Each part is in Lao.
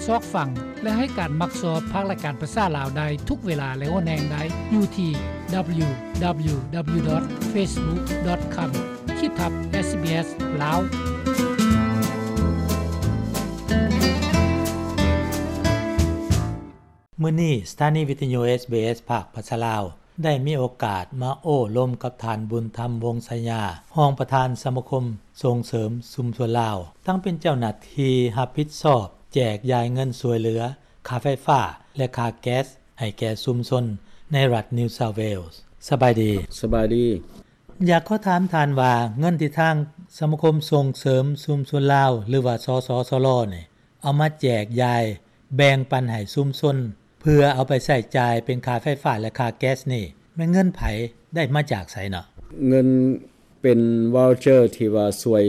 ຊອກຟັງ ແລະ ໃຫ້ການມັກຊອບພາກລາຍການພາສາລາວໄດ້ທຸກເວລາ ແລະ ຫົວແຮງໄດ້ຢູ່ທີ່ www.facebook.com ຂີດທັບ SBS ລາວ. ມື້ນີ້ ສະຖານີວິທະຍຸ SBS ພາກພາສາລາວ ໄດ້ມີໂອກາດມາໂອ້ລົມກັບທ່ານ ບຸນທຳ ວົງໄຊຍາ ຮອງປະທານສະມາຄົມສົ່ງເສີມຊຸມຊົນລາວ, ທັງເປັນເຈົ້າໜ້າທີ່ຮັບຜິດຊອບແຈກຢາຍເງິນຊ່ວຍເຫຼືອຄ່າໄຟຟ້າ ແລະ ຄ່າແກັສໃຫ້ແກ່ຊຸມຊົນໃນລັດ New South Wales. ສະບາຍດີ. ສະບາຍດີ. ຢາກຂໍຖາມທ່ານວ່າ ເງິນທີ່ທາງສະມາຄົມສົ່ງເສີມຊຸມຊົນລາວ ຫຼືວ່າ ສສຊລ ນີ້ ເອົາມາແຈກຢາຍແບ່ງປັນໃຫ້ຊຸມຊົນ ເພື່ອເອົາໄປໃຊ້ຈ່າຍເປັນຄ່າໄຟຟ້າ ແລະ ຄ່າແກັສນີ້ ແມ່ນເງິນໃຜ ໄດ້ມາຈາກໃສເນາະ? ເງິນເປັນ voucher ທີ່ວ່າຊ່ວຍ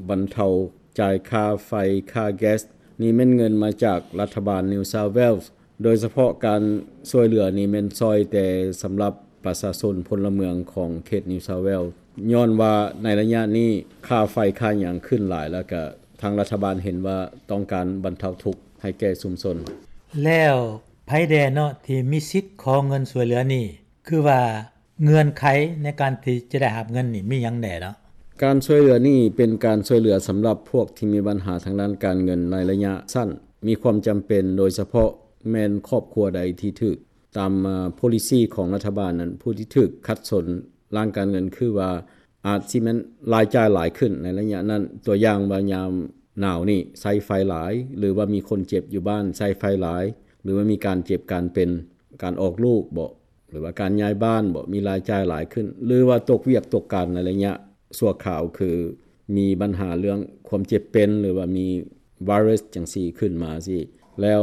ບັນເທົາຈ່າຍຄ່າໄຟ ຄ່າແກັສ ນີ້ແມ່ນເງິນມາຈາກລັດຖະບານ New South Wales. ໂດຍສະເພາະການຊ່ວຍເຫຼືອນີ້ແມ່ນຊ່ອຍແຕ່ສຳລັບປະຊາຊົນພົນລະເມືອງຂອງເຂດ New South Wales ຍ້ອນວ່າໃນໄລຍະນີ້ຄ່າໄຟຄ່າຫຍັງຂຶ້ນຫຼາຍ ແລ້ວກະທາງລັດຖະບານເຫັນວ່າຕ້ອງການບັນເທົາທຸກໃຫ້ແກ່ຊຸມຊົນ. ແລ້ວໃຜແດ່ເນາະທີ່ມີສິດຂໍເງິນຊ່ວຍເຫຼືອນີ້? ຄືວ່າເງື່ອນໄຂໃນການທີ່ຈະໄດ້ຮັບເງິນນີ້ມີຫຍັງແດ່ເນາະ? ການຊ່ວຍເຫຼືອນີ້ເປັນການຊ່ວຍເຫຼືອສຳລັບພວກທີ່ມີບັນຫາທາງດ້ານການເງິນໃນໄລຍະສັ້ນ, ມີຄວາມຈຳເປັນ ໂດຍສະເພາະແມ່ນຄອບຄົວໃດທີ່ຖືກ ຕາມ policy ຂອງລັດຖະບານນັ້ນ ຜູ້ທີ່ຖືກຂັດສົນດ້ານການເງິນ ຄືວ່າອາດຊິແມ່ນລາຍຈ່າຍຫຼາຍຂຶ້ນໃນໄລຍະນັ້ນ, ຕົວຢ່າງວ່າຍາມໜາວນີ້ໃຊ້ໄຟຫຼາຍ ຫຼືວ່າມີຄົນເຈັບຢູ່ບ້ານໃຊ້ໄຟຫຼາຍ ຫຼືວ່າມີການເຈັບການເປັນ ການອອກລູກບໍ ຫຼືວ່າການຍ້າຍບ້ານບໍ ມີລາຍຈ່າຍຫຼາຍຂຶ້ນ ຫຼືວ່າຕົກວຽກຕົກການໃນໄລຍະຊົ່ວຄາວ ຄືມີບັນຫາເລື່ອງຄວາມເຈັບເປັນ ຫຼືວ່າມີໄວຣັສຈັ່ງຊີ້ຂຶ້ນມາຊີ້ ແລ້ວ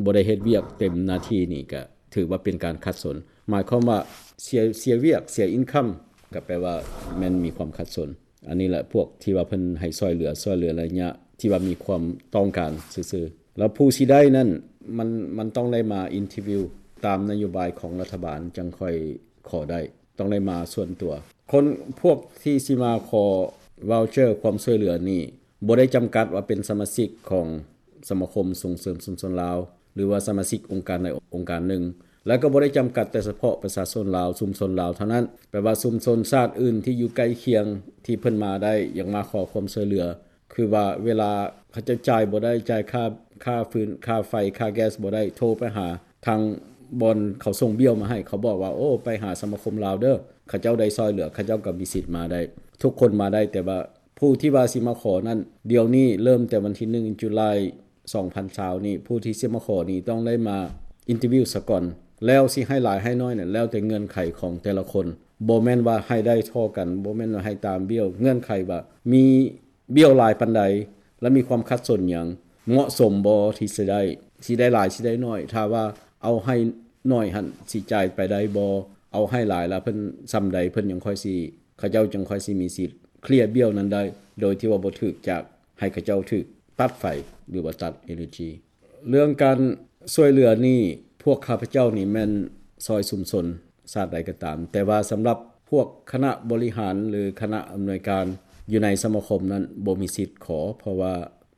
ບໍ່ໄດ້ເຮັດວຽກເຕັມໜ້າທີ່ນີ້ ກະຖືວ່າເປັນການຂັດສົນ ໝາຍຄວາມວ່າເສຍ ເສຍວຽກ ເສຍ income ກະແປວ່າແມ່ນມີຄວາມຂັດສົນ. ອັນນີ້ແຫຼະພວກທີ່ວ່າເພິ່ນໃຫ້ຊ່ວຍເຫຼືອ ຊ່ວຍເຫຼືອໄລຍະທີ່ວ່າມີຄວາມຕ້ອງການຊື່ໆ ແລ້ວຜູ້ຊິໄດ້ນັ້ນ ມັນ ມັນຕ້ອງໄດ້ມາ interview ຕາມນະໂຍບາຍຂອງລັດຖະບານຈັ່ງຄ່ອຍຂໍໄດ້ ຕ້ອງໄດ້ມາສ່ວນຕົວ. ຄົນພວກທີ່ຊິມາຂໍ voucher ຄວາມຊ່ວຍເຫຼືອນີ້ ບໍ່ໄດ້ຈຳກັດວ່າເປັນສະມາຊິກຂອງສະມາຄົມສົ່ງເສີມຊຸມຊົນລາວ ຫຼືວ່າສະມາຊິກອົງການໃດອົງການໜຶ່ງ ແລະ ກໍບໍ່ໄດ້ຈຳກັດແຕ່ສະເພາະປະຊາຊົນລາວ ຊຸມຊົນລາວເທົ່ານັ້ນ. ແປວ່າຊຸມຊົນຊາດອື່ນທີ່ຢູ່ໃກ້ຄຽງທີ່ເພິ່ນມາໄດ້ ຢາກມາຂໍຄວາມຊ່ວຍເຫຼືອ ຄືວ່າເວລາເຂົາເຈົ້າຈ່າຍບໍ່ໄດ້ ຈ່າຍຄ່າ ຄ່າຟືນ ຄ່າໄຟ ຄ່າແກັສບໍ່ໄດ້ ໂທໄປຫາທາງບ່ອນເຂົາສົ່ງບ້ຽວມາໃຫ້ ເຂົາບອກວ່າ ໂອ້ ໄປຫາສະມາຄົມລາວເດີ ເຂົາເຈົ້າໄດ້ຊ່ອຍເຫຼືອ ເຂົາເຈົ້າກໍມີສິດມາໄດ້ ທຸກຄົນມາໄດ້ ແຕ່ວ່າຜູ້ທີ່ວ່າຊິມາຂໍນັ້ນ ດຽວນີ້ເລີ່ມແຕ່ວັນທີໜຶ່ງ July ສອງພັນຊາວນີ້ ຜູ້ທີ່ຊິມາຂໍນີ້ຕ້ອງໄດ້ມາ interview ສາກ່ອນ ແລ້ວຊິໃຫ້ຫຼາຍໃຫ້ໜ້ອຍນັ້ນ ແລ້ວແຕ່ເງື່ອນໄຂຂອງແຕ່ລະຄົນ ບໍ່ແມ່ນວ່າໃຫ້ໄດ້ທໍ່ກັນ ບໍ່ແມ່ນວ່າໃຫ້ຕາມບ້ຽວ ເງື່ອນໄຂວ່າມີບ້ຽວຫຼາຍປານໃດ ແລະ ມີຄວາມຂັດສົນຫຍັງ ເໝາະສົມບໍ່ທີ່ຊິໄດ້ ຊິໄດ້ຫຼາຍ ຊິໄດ້ໜ້ອຍ ຖ້າວ່າເອົາໃຫ້ໜ້ອຍຫັ້ນ ຊິຈ່າຍໄປໄດ້ບໍ່ ເອົາໃຫ້ຫຼາຍລະເພິ່ນ ສ່ຳໃດເພິ່ນຍັງຄ່ອຍຊິ ເຂົາເຈົ້າຈຶ່ງຄ່ອຍຊິມີສິດເຄລຍບ້ຽວນັ້ນໄດ້ ໂດຍທີ່ວ່າບໍ່ຖືກຈາກ ໃຫ້ເຂົາເຈົ້າຖືກຕັດໄຟ ຫຼືວ່າຕັດ energy. ເລື່ອງການຊ່ວຍເຫຼືອນີ້ ພວກຂ້າພະເຈົ້ານີ້ແມ່ນຊ່ອຍຊຸມຊົນຊາດໃດກໍຕາມ ແຕ່ວ່າສຳລັບພວກຄະນະບໍລິຫານ ຫຼືຄະນະອຳນວຍການຢູ່ໃນສະມາຄົມນັ້ນບໍ່ມີສິດຂໍ ເພາະວ່າ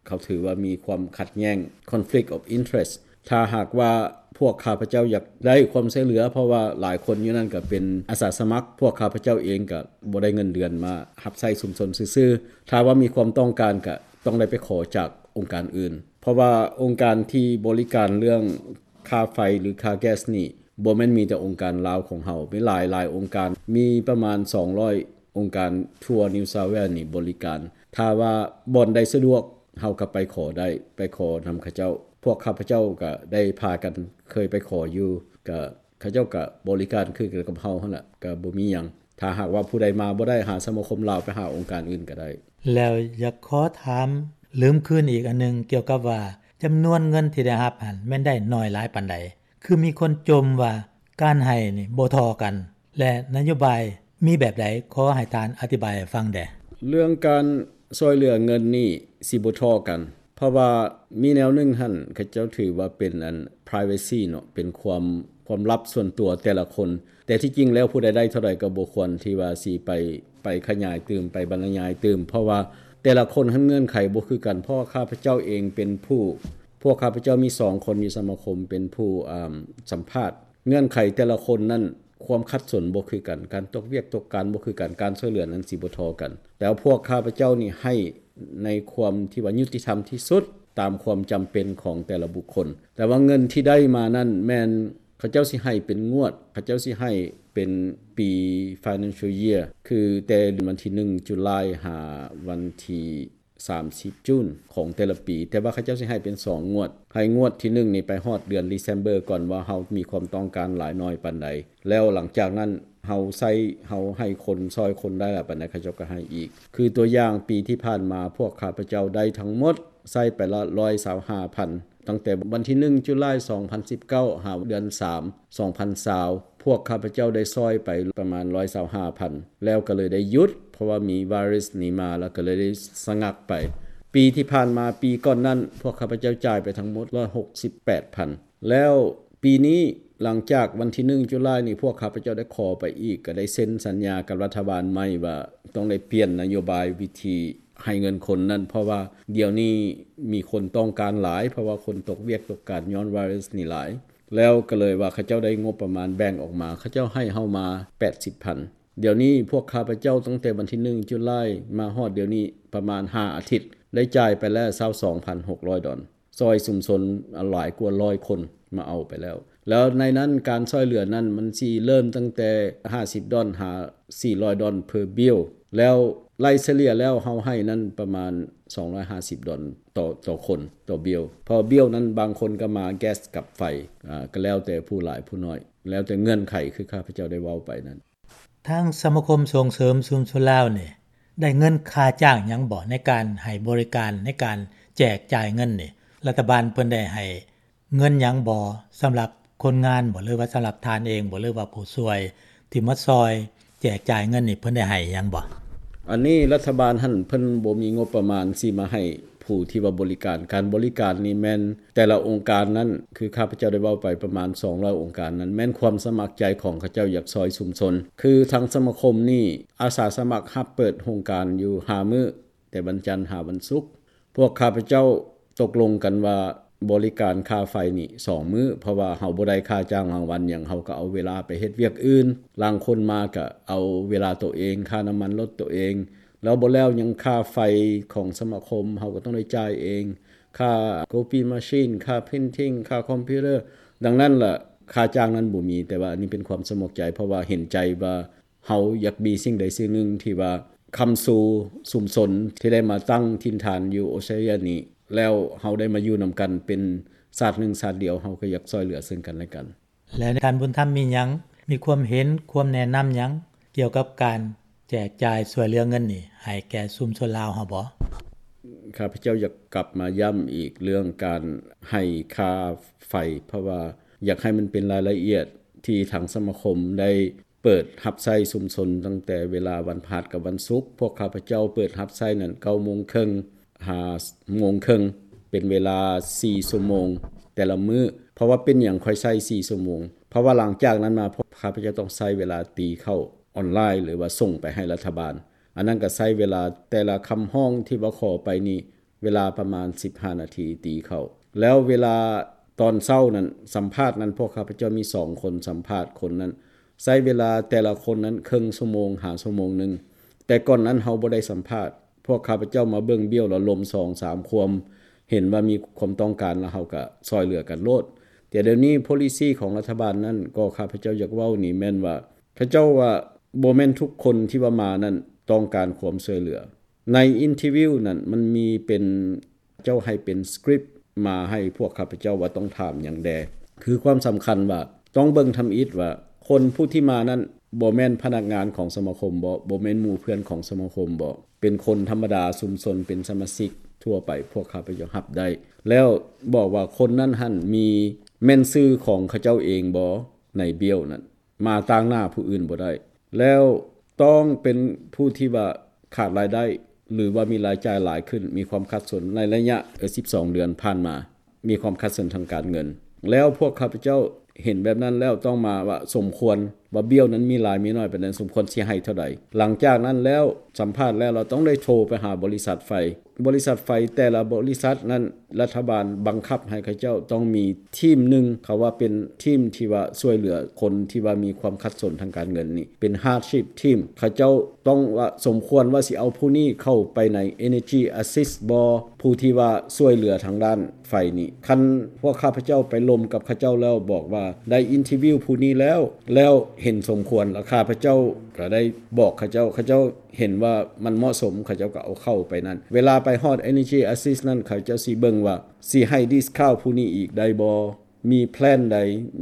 ເຂົາຖືວ່າມີຄວາມຂັດແຍ່ງ conflict of interest. ຖ້າຫາກວ່າພວກຂ້າພະເຈົ້າຢາກໄດ້ຄວາມຊ່ວຍເຫຼືອ ເພາະວ່າຫຼາຍຄົນຢູ່ນັ້ນກໍເປັນອາສາສະໝັກ ພວກຂ້າພະເຈົ້າເອງກໍບໍ່ໄດ້ເງິນເດືອນ ມາຮັບໃຊ້ຊຸມຊົນຊື່ໆ ຖ້າວ່າມີຄວາມຕ້ອງການກໍຕ້ອງໄດ້ໄປຂໍຈາກອົງການອື່ນ ເພາະວ່າອົງການທີ່ບໍລິການເລື່ອງຄ່າໄຟ ຫຼື ຄ່າແກັສນີ້ ບໍ່ແມ່ນມີແຕ່ອົງການລາວຂອງເຮົາ ມີຫຼາຍໆອົງການ ມີປະມານສອງຮ້ອຍອົງການທົ່ວ New South Wales ນີ້ບໍລິການ ຖ້າວ່າບ່ອນໃດສະດວກ ເຮົາກໍໄປຂໍໄດ້ ໄປຂໍນຳເຂົາເຈົ້າ ພວກຂ້າພະເຈົ້າກໍໄດ້ພາກັນເຄີຍໄປຂໍຢູ່ ກໍເຂົາເຈົ້າກໍບໍລິການຄືກັນກັບເຮົາຫັ້ນລະ ກໍບໍ່ມີຫຍັງ ຖ້າຫາກວ່າຜູ້ໃດມາບໍ່ໄດ້ ຫາສະມາຄົມລາວ ໄປຫາອົງການອື່ນກໍໄດ້. ແລ້ວຢາກຂໍຖາມ ລືມຄືນອີກອັນໜຶ່ງ ກ່ຽວກັບວ່າຈຳນວນເງິນທີ່ໄດ້ຮັບຫັ້ນ ແມ່ນໄດ້ໜ້ອຍຫຼາຍປານໃດ? ຄືມີຄົນຈົ່ມວ່າການໃຫ້ນີ້ບໍ່ທໍ່ກັນ ແລະ ນະໂຍບາຍມີແບບໃດ? ຂໍໃຫ້ທ່ານອະທິບາຍໃຫ້ຟັງແດ່. ເລື່ອງການຊ່ວຍເຫຼືອເງິນນີ້ຊິບໍ່ທໍ່ກັນ ເພາະວ່າມີແນວໜຶ່ງຫັ້ນ ເຂົາເຈົ້າຖືວ່າເປັນອັນ privacy ເນາະ ເປັນຄວາມ ຄວາມລັບສ່ວນຕົວແຕ່ລະຄົນ ແຕ່ທີ່ຈິງແລ້ວຜູ້ໃດໄດ້ເທົ່າໃດກໍບໍ່ຄວນທີ່ວ່າຊິໄປ ໄປຂະຫຍາຍຕື່ມ ໄປບັນລະຍາຍຕື່ມ ເພາະວ່າແຕ່ລະຄົນຫັ້ນເງື່ອນໄຂບໍ່ຄືກັນ ເພາະວ່າຂ້າພະເຈົ້າເອງເປັນຜູ້ ພວກຂ້າພະເຈົ້າມີສອງຄົນຢູ່ສະມາຄົມເປັນຜູ້ ອາ ສຳພາດ. ເງື່ອນໄຂແຕ່ລະຄົນນັ້ນ ຄວາມຂັດສົນບໍ່ຄືກັນ, ການຕົກວຽກຕົກການບໍ່ຄືກັນ, ການຊ່ວຍເຫຼືອນັ້ນຊິບໍ່ທໍ່ກັນ. ແຕ່ວ່າພວກຂ້າພະເຈົ້ານີ້ໃຫ້ໃນຄວາມທີ່ວ່າຍຸຕິທຳທີ່ສຸດ ຕາມຄວາມຈຳເປັນຂອງແຕ່ລະບຸກຄົນ. ແຕ່ວ່າເງິນທີ່ໄດ້ມານັ້ນແມ່ນເຂົາເຈົ້າຊິໃຫ້ເປັນງວດ, ເຂົາເຈົ້າຊິໃຫ້ເປັນປີ financial year ຄືແຕ່ວັນທີໜຶ່ງ July ຫາວັນທີ ສາມສິບ June ຂອງແຕ່ລະປີ, ແຕ່ວ່າເຂົາເຈົ້າຊິໃຫ້ເປັນສອງງວດ, ໃຫ້ງວດທີໜຶ່ງນີ້ໄປຮອດເດືອນ December ກ່ອນວ່າເຮົາມີຄວາມຕ້ອງການຫຼາຍໜ້ອຍປານໃດ, ແລ້ວຫຼັງຈາກນັ້ນເຮົາໃຊ້ ເຮົາໃຫ້ຄົນ ຊ່ອຍຄົນໄດ້ຫຼາຍປານໃດ ເຂົາເຈົ້າກໍໃຫ້ອີກ. ຄືຕົວຢ່າງປີທີ່ຜ່ານມາ ພວກຂ້າພະເຈົ້າໄດ້ທັງໝົດ ໃຊ້ໄປລະ ຮ້ອຍຊາວຫ້າພັນ ຕັ້ງແຕ່ວັນທີໜຶ່ງ July ສອງພັນສິບເກົ້າ ຫາເດືອນສາມ ສອງພັນຊາວ ພວກຂ້າພະເຈົ້າໄດ້ຊ່ອຍໄປປະມານ ຮ້ອຍຊາວຫ້າພັນ ແລ້ວກໍເລີຍໄດ້ຢຸດ ເພາະວ່າມີໄວຣັສນີ້ມາ ແລ້ວກໍເລີຍໄດ້ສະງັກໄປ. ປີທີ່ຜ່ານມາ ປີກ່ອນນັ້ນ ພວກຂ້າພະເຈົ້າຈ່າຍໄປທັງໝົດ ຮ້ອຍຫົກສິບແປດພັນ ແລ້ວປີນີ້ ຫຼັງຈາກວັນທີໜຶ່ງ July ນີ້ ພວກຂ້າພະເຈົ້າໄດ້ຂໍໄປອີກ ກໍໄດ້ເຊັນສັນຍາກັບລັດຖະບານໃໝ່ວ່າຕ້ອງໄດ້ປ່ຽນນະໂຍບາຍວິທີໃຫ້ເງິນຄົນນັ້ນ ເພາະວ່າດຽວນີ້ມີຄົນຕ້ອງການຫຼາຍ ເພາະວ່າຄົນຕົກວຽກຕົກການຍ້ອນໄວຣັສນີ້ຫຼາຍ. ແລ້ວກໍເລີຍວ່າເຂົາເຈົ້າໄດ້ງົບປະມານແບ່ງອອກມາ, ເຂົາເຈົ້າໃຫ້ເຮົາມາ ແປດສິບພັນ. ດຽວນີ້ພວກຂ້າພະເຈົ້າຕັ້ງແຕ່ວັນທີໜຶ່ງ July ມາຮອດດຽວນີ້ປະມານຫ້າອາທິດ ໄດ້ຈ່າຍໄປແລ້ວ ຊາວສອງພັນຫົກຮ້ອຍດອນ, ຊ່ອຍຊຸມຊົນຫຼາຍກວ່າຮ້ອຍຄົນມາເອົາໄປແລ້ວ. ແລ້ວໃນນັ້ນການຊ່ອຍເຫຼືອນັ້ນມັນຊິເລີ່ມຕັ້ງແຕ່ຫ້າສິບດອນຫາສີ່ຮ້ອຍດອນ per bill ແລ້ວໄລ່ສະເລ່ຍແລ້ວເຮົາໃຫ້ນັ້ນປະມານສອງຮ້ອຍຫ້າສິບດອນຕໍ່ ຕໍ່ຄົນ ຕໍ່ bill ເພາະ bill ນັ້ນບາງຄົນກໍມາແກັສກັບໄຟ ອາ ກໍແລ້ວແຕ່ຜູ້ຫຼາຍຜູ້ໜ້ອຍ ແລ້ວແຕ່ເງື່ອນໄຂ ຄືຂ້າພະເຈົ້າໄດ້ເວົ້າໄປນັ້ນ. ທາງສະມາຄົມສົ່ງເສີມຊຸມຊົນລາວນີ້ ໄດ້ເງິນຄ່າຈ້າງຫຍັງບໍ່ ໃນການໃຫ້ບໍລິການ ໃນການແຈກຈ່າຍເງິນນີ້? ລັດຖະບານເພິ່ນໄດ້ໃຫ້ເງິນຫຍັງບໍ່ ສຳລັບຄົນງານບໍ່ ຫຼືວ່າສຳລັບທ່ານເອງບໍ່ ຫຼືວ່າຜູ້ຊ່ວຍທີ່ມາຊ່ອຍແຈກຈ່າຍເງິນນີ້ ເພິ່ນໄດ້ໃຫ້ຫຍັງບໍ່? ອັນນີ້ລັດຖະບານຫັ້ນເພິ່ນບໍ່ມີງົບປະມານຊິມາໃຫ້ ຜູ້ທີ່ວ່າບໍລິການ, ການບໍລິການນີ້ແມ່ນແຕ່ລະອົງການນັ້ນ ຄືຂ້າພະເຈົ້າໄດ້ເວົ້າໄປປະມານສອງຮ້ອຍອົງການນັ້ນ ແມ່ນຄວາມສະໝັກໃຈຂອງເຂົາເຈົ້າຢາກຊ່ອຍຊຸມຊົນ. ຄືທາງສະມາຄົມນີ້ອາສາສະໝັກຮັບເປີດໂຮງການຢູ່ຫ້າມື້ ແຕ່ວັນຈັນຫາວັນສຸກ. ພວກຂ້າພະເຈົ້າຕົກລົງກັນວ່າບໍລິການຄ່າໄຟນີ້ສອງມື້ ເພາະວ່າເຮົາບໍ່ໄດ້ຄ່າຈ້າງລາງວັນຫຍັງ, ເຮົາກໍເອົາເວລາໄປເຮັດວຽກອື່ນ. ລາງຄົນມາກໍເອົາເວລາໂຕເອງ, ຄ່ານ້ຳມັນລົດໂຕເອງ. ແລ້ວບໍ່ແລ້ວຍັງຄ່າໄຟຂອງສະມາຄົມ ເຮົາກໍຕ້ອງໄດ້ຈ່າຍເອງ, ຄ່າ copy machine ຄ່າ printing ຄ່າຄອມພິວເຕີ. ດັ່ງນັ້ນລະ ຄ່າຈ້າງນັ້ນບໍ່ມີ, ແຕ່ວ່າອັນນີ້ເປັນຄວາມສະໝັກໃຈ ເພາະວ່າເຫັນໃຈວ່າເຮົາຢາກມີສິ່ງໃດສິ່ງໜຶ່ງທີ່ວ່າຄ້ຳຊູຊຸມຊົນທີ່ໄດ້ມາຕັ້ງຖິ່ນຖານຢູ່ອົດສະຕຣາເລຍນີ້ ແລ້ວເຮົາໄດ້ມາຢູ່ນຳກັນເປັນຊາດໜຶ່ງຊາດດຽວ, ເຮົາກໍຢາກຊ່ວຍເຫຼືອເຊິ່ງກັນແລະກັນ. ແລະທ່ານບຸນທຳມີຫຍັງ ມີຄວາມເຫັນ ຄວາມແນະນຳຫຍັງກ່ຽວກັບການແຈກຈ່າຍຊ່ວຍເຫຼືອເງິນນີ້ໃຫ້ແກ່ຊຸມຊົນລາວເຮົາບໍ່? ຂ້າພະເຈົ້າຢາກກັບມາຢ້ຳອີກເລື່ອງການໃຫ້ຄ່າໄຟ ເພາະວ່າຢາກໃຫ້ມັນເປັນລາຍລະອຽດທີ່ທາງສະມາຄົມໄດ້ເປີດຮັບໃຊ້ຊຸມຊົນຕັ້ງແຕ່ເວລາວັນພະຫັດກັບວັນສຸກ. ພວກຂ້າພະເຈົ້າເປີດຮັບໃຊ້ນັ້ນເກົ້າໂມງເຄິ່ງ ຫ້າໂມງເຄິ່ງ ເປັນເວລາສີ່ຊົ່ວໂມງແຕ່ລະມື້. ເພາະວ່າເປັນຫຍັງຂ້ອຍໃຊ້ສີ່ຊົ່ວໂມງ? ເພາະວ່າຫຼັງຈາກນັ້ນມາ ພວກຂ້າພະເຈົ້າຕ້ອງໃຊ້ເວລາຕີເຂົ້າອອນລາຍ ຫຼືວ່າສົ່ງໄປໃຫ້ລັດຖະບານ. ອັນນັ້ນກໍໃຊ້ເວລາແຕ່ລະຄຳຮ້ອງທີ່ວ່າຂໍໄປນີ້ ເວລາປະມານສິບຫ້ານາທີຕີເຂົ້າ. ແລ້ວເວລາຕອນເຊົ້ານັ້ນ ສຳພາດນັ້ນ ພວກຂ້າພະເຈົ້າມີສອງຄົນສຳພາດຄົນນັ້ນ ໃຊ້ເວລາແຕ່ລະຄົນນັ້ນເຄິ່ງຊົ່ວໂມງຫາຊົ່ວໂມງໜຶ່ງ. ແຕ່ກ່ອນນັ້ນເຮົາບໍ່ໄດ້ສຳພາດ. ພວກຂ້າພະເຈົ້າມາເບິ່ງ bill ແລ້ວລົມສອງສາມຄວາມ ເຫັນວ່າມີຄວາມຕ້ອງການ ແລ້ວເຮົາກໍຊ່ອຍເຫຼືອກັນໂລດ. ແຕ່ດຽວນີ້ policy ຂອງລັດຖະບານນັ້ນ ກໍຂ້າພະເຈົ້າຢາກເວົ້ານີ້ແມ່ນວ່າ ເຂົາເຈົ້າວ່າບໍ່ແມ່ນທຸກຄົນທີ່ວ່າມານັ້ນຕ້ອງການຄວາມຊ່ວຍເຫຼືອ. ໃນ interview ນັ້ນມັນມີເປັນ ເຈົ້າໃຫ້ເປັນ script ມາໃຫ້ພວກຂ້າພະເຈົ້າວ່າຕ້ອງຖາມຫຍັງແດ່. ຄືຄວາມສຳຄັນວ່າຕ້ອງເບິ່ງທຳອິດວ່າ ຄົນຜູ້ທີ່ມານັ້ນບໍ່ແມ່ນພະນັກງານຂອງສະມາຄົມບໍ? ບໍ່ແມ່ນໝູ່ເພື່ອນຂອງສະມາຄົມບໍ? ເປັນຄົນທຳມະດາຊຸມຊົນ ເປັນສະມາຊິກທົ່ວໄປ ພວກຂ້າພະເຈົ້າຮັບໄດ້. ແລ້ວບອກວ່າຄົນນັ້ນຫັ້ນມີ ແມ່ນຊື່ຂອງເຂົາເຈົ້າເອງບໍໃນ bill ນັ້ນ? ມາຕາງໜ້າຜູ້ອື່ນບໍ່ໄດ້. ແລ້ວຕ້ອງເປັນຜູ້ທີ່ວ່າຂາດລາຍໄດ້ ຫຼືວ່າມີລາຍຈ່າຍຫຼາຍຂຶ້ນ, ມີຄວາມຂັດສົນໃນໄລຍະ ເອີ ສິບສອງເດືອນຜ່ານມາ, ມີຄວາມຂັດສົນທາງການເງິນ. ແລ້ວພວກຂ້າພະເຈົ້າເຫັນແບບນັ້ນແລ້ວ ຕ້ອງມາວ່າສົມຄວນ ວ່າບ້ຽວນັ້ນມີຫຼາຍມີໜ້ອຍປານໃດ, ສົມຄວນຊິໃຫ້ເທົ່າໃດ. ຫຼັງຈາກນັ້ນແລ້ວ ສຳພາດແລ້ວ ເຮົາຕ້ອງໄດ້ໂທໄປຫາບໍລິສັດໄຟ. ບໍລິສັດໄຟແຕ່ລະບໍລິສັດນັ້ນ ລັດຖະບານບັງຄັບໃຫ້ເຂົາເຈົ້າຕ້ອງມີທີມໜຶ່ງ, ເຂົາວ່າເປັນທີມທີ່ວ່າຊ່ວຍເຫຼືອຄົນທີ່ວ່າມີຄວາມຂັດສົນທາງການເງິນນີ້ ເປັນ hardship team. ເຂົາເຈົ້າຕ້ອງວ່າສົມຄວນວ່າຊິເອົາຜູ້ນີ້ເຂົ້າໄປໃນ Energy Assist ບໍ່? ຜູ້ທີ່ວ່າຊ່ວຍເຫຼືອທາງດ້ານໄຟນີ້. ຄັນພວກຂ້າພະເຈົ້າໄປລົມກັບເຂົາເຈົ້າແລ້ວ ບອກວ່າໄດ້ interview ຜູ້ນີ້ແລ້ວ ແລ້ວເຫັນສົມຄວນ ແລ້ວຂ້າພະເຈົ້າກໍໄດ້ບອກເຂົາເຈົ້າ, ເຂົາເຈົ້າເຫັນວ່າມັນເໝາະສົມ ເຂົາເຈົ້າກໍເອົາເຂົ້າໄປນັ້ນ. ເວລາໄປຮອດ Energy Assist ນັ້ນ ເຂົາເຈົ້າຊິເບິ່ງວ່າຊິໃຫ້ discount ຜູ້ນີ້ອີກໄດ້ບໍ່? ມີແພລນໃດ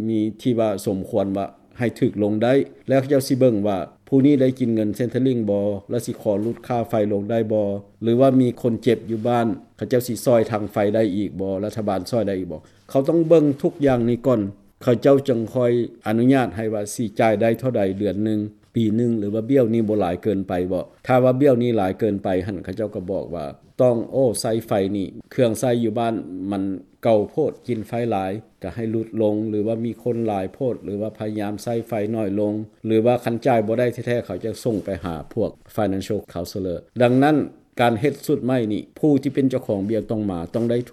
ມີທີ່ວ່າສົມຄວນວ່າໃຫ້ຖືກລົງໄດ້ ແລ້ວເຂົາເຈົ້າຊິເບິ່ງວ່າຜູ້ນີ້ໄດ້ກິນເງິນ Centrelink ບໍ່ ແລ້ວຊິຂໍຫຼຸດຄ່າໄຟລົງໄດ້ບໍ່ ຫຼືວ່າມີຄົນເຈັບຢູ່ບ້ານ ເຂົາເຈົ້າຊິຊ່ອຍທາງໄຟໄດ້ອີກບໍ່ ລັດຖະບານຊ່ອຍໄດ້ອີກບໍ່. ເຂົາຕ້ອງເບິ່ງທຸກຢ່າງນີ້ກ່ອນ ເຂົາເຈົ້າຈຶ່ງຄ່ອຍອະນຸຍາດໃຫ້ວ່າຊິຈ່າຍໄດ້ເທົ່າໃດເດືອນໜຶ່ງ ປີໜຶ່ງ ຫຼືວ່າບ້ຽວນີ້ບໍ່ຫຼາຍເກີນໄປບໍ່. ຖ້າວ່າບ້ຽວນີ້ຫຼາຍເກີນໄປຫັ້ນ ເຂົາເຈົ້າກໍບອກວ່າຕ້ອງ ໂອ້ ໃຊ້ໄຟນີ້ ເຄື່ອງໃຊ້ຢູ່ບ້ານມັນເກົ່າໂພດ ກິນໄຟຫຼາຍ ກໍໃຫ້ຫຼຸດລົງ ຫຼືວ່າມີຄົນຫຼາຍໂພດ ຫຼືວ່າພະຍາຍາມໃຊ້ໄຟໜ້ອຍລົງ ຫຼືວ່າຄັນຈ່າຍບໍ່ໄດ້ແທ້ໆ ເຂົາຈະສົ່ງໄປຫາພວກ financial counselor. ດັ່ງນັ້ນ ການເຮັດຊຸດໃໝ່ນີ້ ຜູ້ທີ່ເປັນເຈົ້າຂອງບ້ຽວຕ້ອງມາ ຕ້ອງໄດ້ໂທ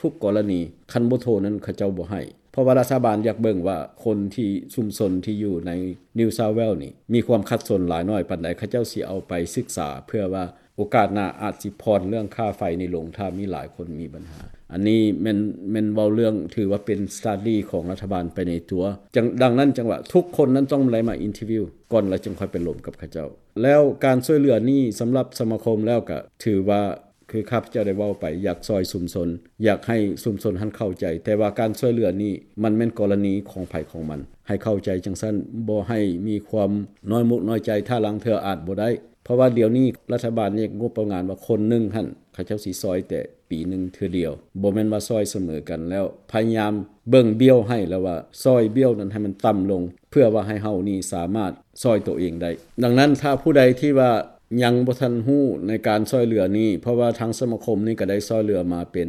ທຸກໆກໍລະນີ ຄັນບໍ່ໂທນັ້ນເຂົາເຈົ້າບໍ່ໃຫ້. ເພາະວ່າລັດຖະບານຢາກເບິ່ງວ່າຄົນທີ່ ຊຸມຊົນທີ່ຢູ່ໃນ New South Wales ນີ້ ມີຄວາມຂັດສົນຫຼາຍໜ້ອຍປານໃດ ເຂົາເຈົ້າຊິເອົາໄປສຶກສາ ເພື່ອວ່າໂອກາດໜ້າອາດຊິຜ່ອນເລື່ອງຄ່າໄຟນີ້ລົງ ຖ້າມີຫຼາຍຄົນມີບັນຫາ. ອັນນີ້ແມ່ນ ແມ່ນເວົ້າເລື່ອງ ຖືວ່າເປັນ study ຂອງລັດຖະບານໄປໃນຕົວ. ຈັ່ງ ດັ່ງນັ້ນຈັ່ງວ່າທຸກຄົນນັ້ນຕ້ອງໄດ້ມາ interview ກ່ອນ ແລ້ວຈຶ່ງຄ່ອຍໄປລົມກັບເຂົາເຈົ້າ. ແລ້ວການຊ່ວຍເຫຼືອນີ້ສຳລັບສະມາຄົມແລ້ວກະຖືວ່າ ຄືຂ້າພະເຈົ້າໄດ້ເວົ້າໄປ ຢາກຊ່ອຍຊຸມຊົນ ຢາກໃຫ້ຊຸມຊົນຫັ້ນເຂົ້າໃຈ, ແຕ່ວ່າການຊ່ວຍເຫຼືອນີ້ມັນແມ່ນກໍລະນີຂອງໃຜຂອງມັນ ໃຫ້ເຂົ້າໃຈຈັ່ງຊັ້ນ, ບໍ່ໃຫ້ມີຄວາມນ້ອຍມຸກນ້ອຍໃຈ ຖ້າລາງເທື່ອອາດບໍ່ໄດ້. ເພາະວ່າດຽວນີ້ລັດຖະບານແຍກງົບປະມານວ່າຄົນໜຶ່ງຫັ້ນ ເຂົາເຈົ້າຊິຊ່ອຍແຕ່ ປີໜຶ່ງເທື່ອດຽວ, ບໍ່ແມ່ນວ່າຊ່ອຍສະເໝີກັນ, ແລ້ວພະຍາຍາມເບິ່ງບ້ຽວໃຫ້ ແລ້ວວ່າຊ່ອຍບ້ຽວນັ້ນໃຫ້ມັນຕ່ຳລົງ ເພື່ອວ່າໃຫ້ເຮົານີ້ສາມາດຊ່ອຍໂຕເອງໄດ້. ດັ່ງນັ້ນ ຖ້າຜູ້ໃດທີ່ວ່າຍັງບໍ່ທັນຮູ້ໃນການຊ່ອຍເຫຼືອນີ້, ເພາະວ່າທາງສະມາຄົມນີ້ກໍໄດ້ຊ່ອຍເຫຼືອມາເປັນ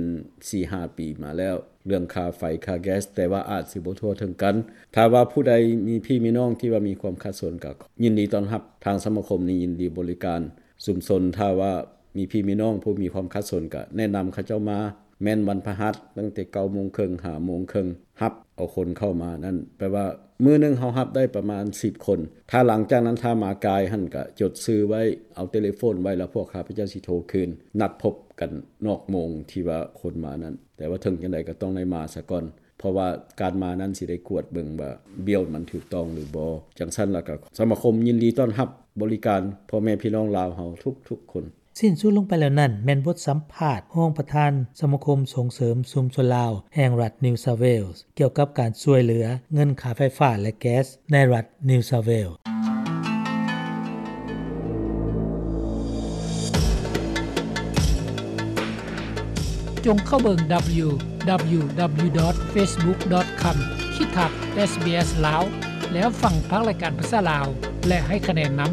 ສີ່ຫ້າປີມາແລ້ວ ເລື່ອງຄ່າໄຟຄ່າແກັສ, ແຕ່ວ່າອາດຊິບໍ່ທົ່ວເຖິງກັນ. ຖ້າວ່າຜູ້ໃດມີພີ່ມີນ້ອງທີ່ວ່າມີຄວາມຂັດສົນ ກໍຍິນດີຕ້ອນຮັບ, ທາງສະມາຄົມນີ້ຍິນດີບໍລິການຊຸມຊົນ. ຖ້າວ່າ ມີພີ່ມີນ້ອງຜູ້ມີຄວາມຂັດສົນ ກະແນະນຳເຂົາເຈົ້າມາ, ແມ່ນວັນພະຫັດ ຕັ້ງແຕ່ເກົ້າໂມງເຄິ່ງ ຫ້າໂມງເຄິ່ງ ຮັບເອົາຄົນເຂົ້າມານັ້ນ ແປວ່າມື້ໜຶ່ງເຮົາຮັບໄດ້ປະມານສິບຄົນ. ຖ້າຫຼັງຈາກນັ້ນ ຖ້າມາກາຍຫັ້ນ ກະຈົດຊື່ໄວ້ ເອົາເຕເລໂຟນໄວ້ ແລ້ວພວກຂ້າພະເຈົ້າຊິໂທຄືນ ນັດພົບກັນນອກໂມງທີ່ວ່າຄົນມານັ້ນ. ແຕ່ວ່າເຖິງຈັ່ງໃດກໍຕ້ອງໄດ້ມາສາກ່ອນ ເພາະວ່າການມານັ້ນຊິໄດ້ກວດເບິ່ງວ່າບ້ຽວມັນຖືກຕ້ອງຫຼືບໍ່. ຈັ່ງຊັ້ນລະກະ ສະມາຄົມຍິນດີຕ້ອນຮັບບໍລິການພໍ່ແມ່ພີ່ນ້ອງລາວເຮົາທຸກໆຄົນ. ສິ້ນສຸດລົງໄປແລ້ວນັ້ນ ແມ່ນບົດສຳພາດຮອງປະທານສະມາຄົມສົ່ງເສີມຊຸມຊົນລາວແຫ່ງລັດ New South Wales ກ່ຽວກັບການຊ່ວຍເຫຼືອເງິນຄ່າໄຟຟ້າ ແລະ ແກັສໃນລັດ New South Wales. ຈົ່ງເຂົ້າເບິ່ງ www.facebook.com/sbslao ແລ້ວຟັງພາກລາຍການພາສາລາວ ແລະ ໃຫ້ຄະແນນນຳ.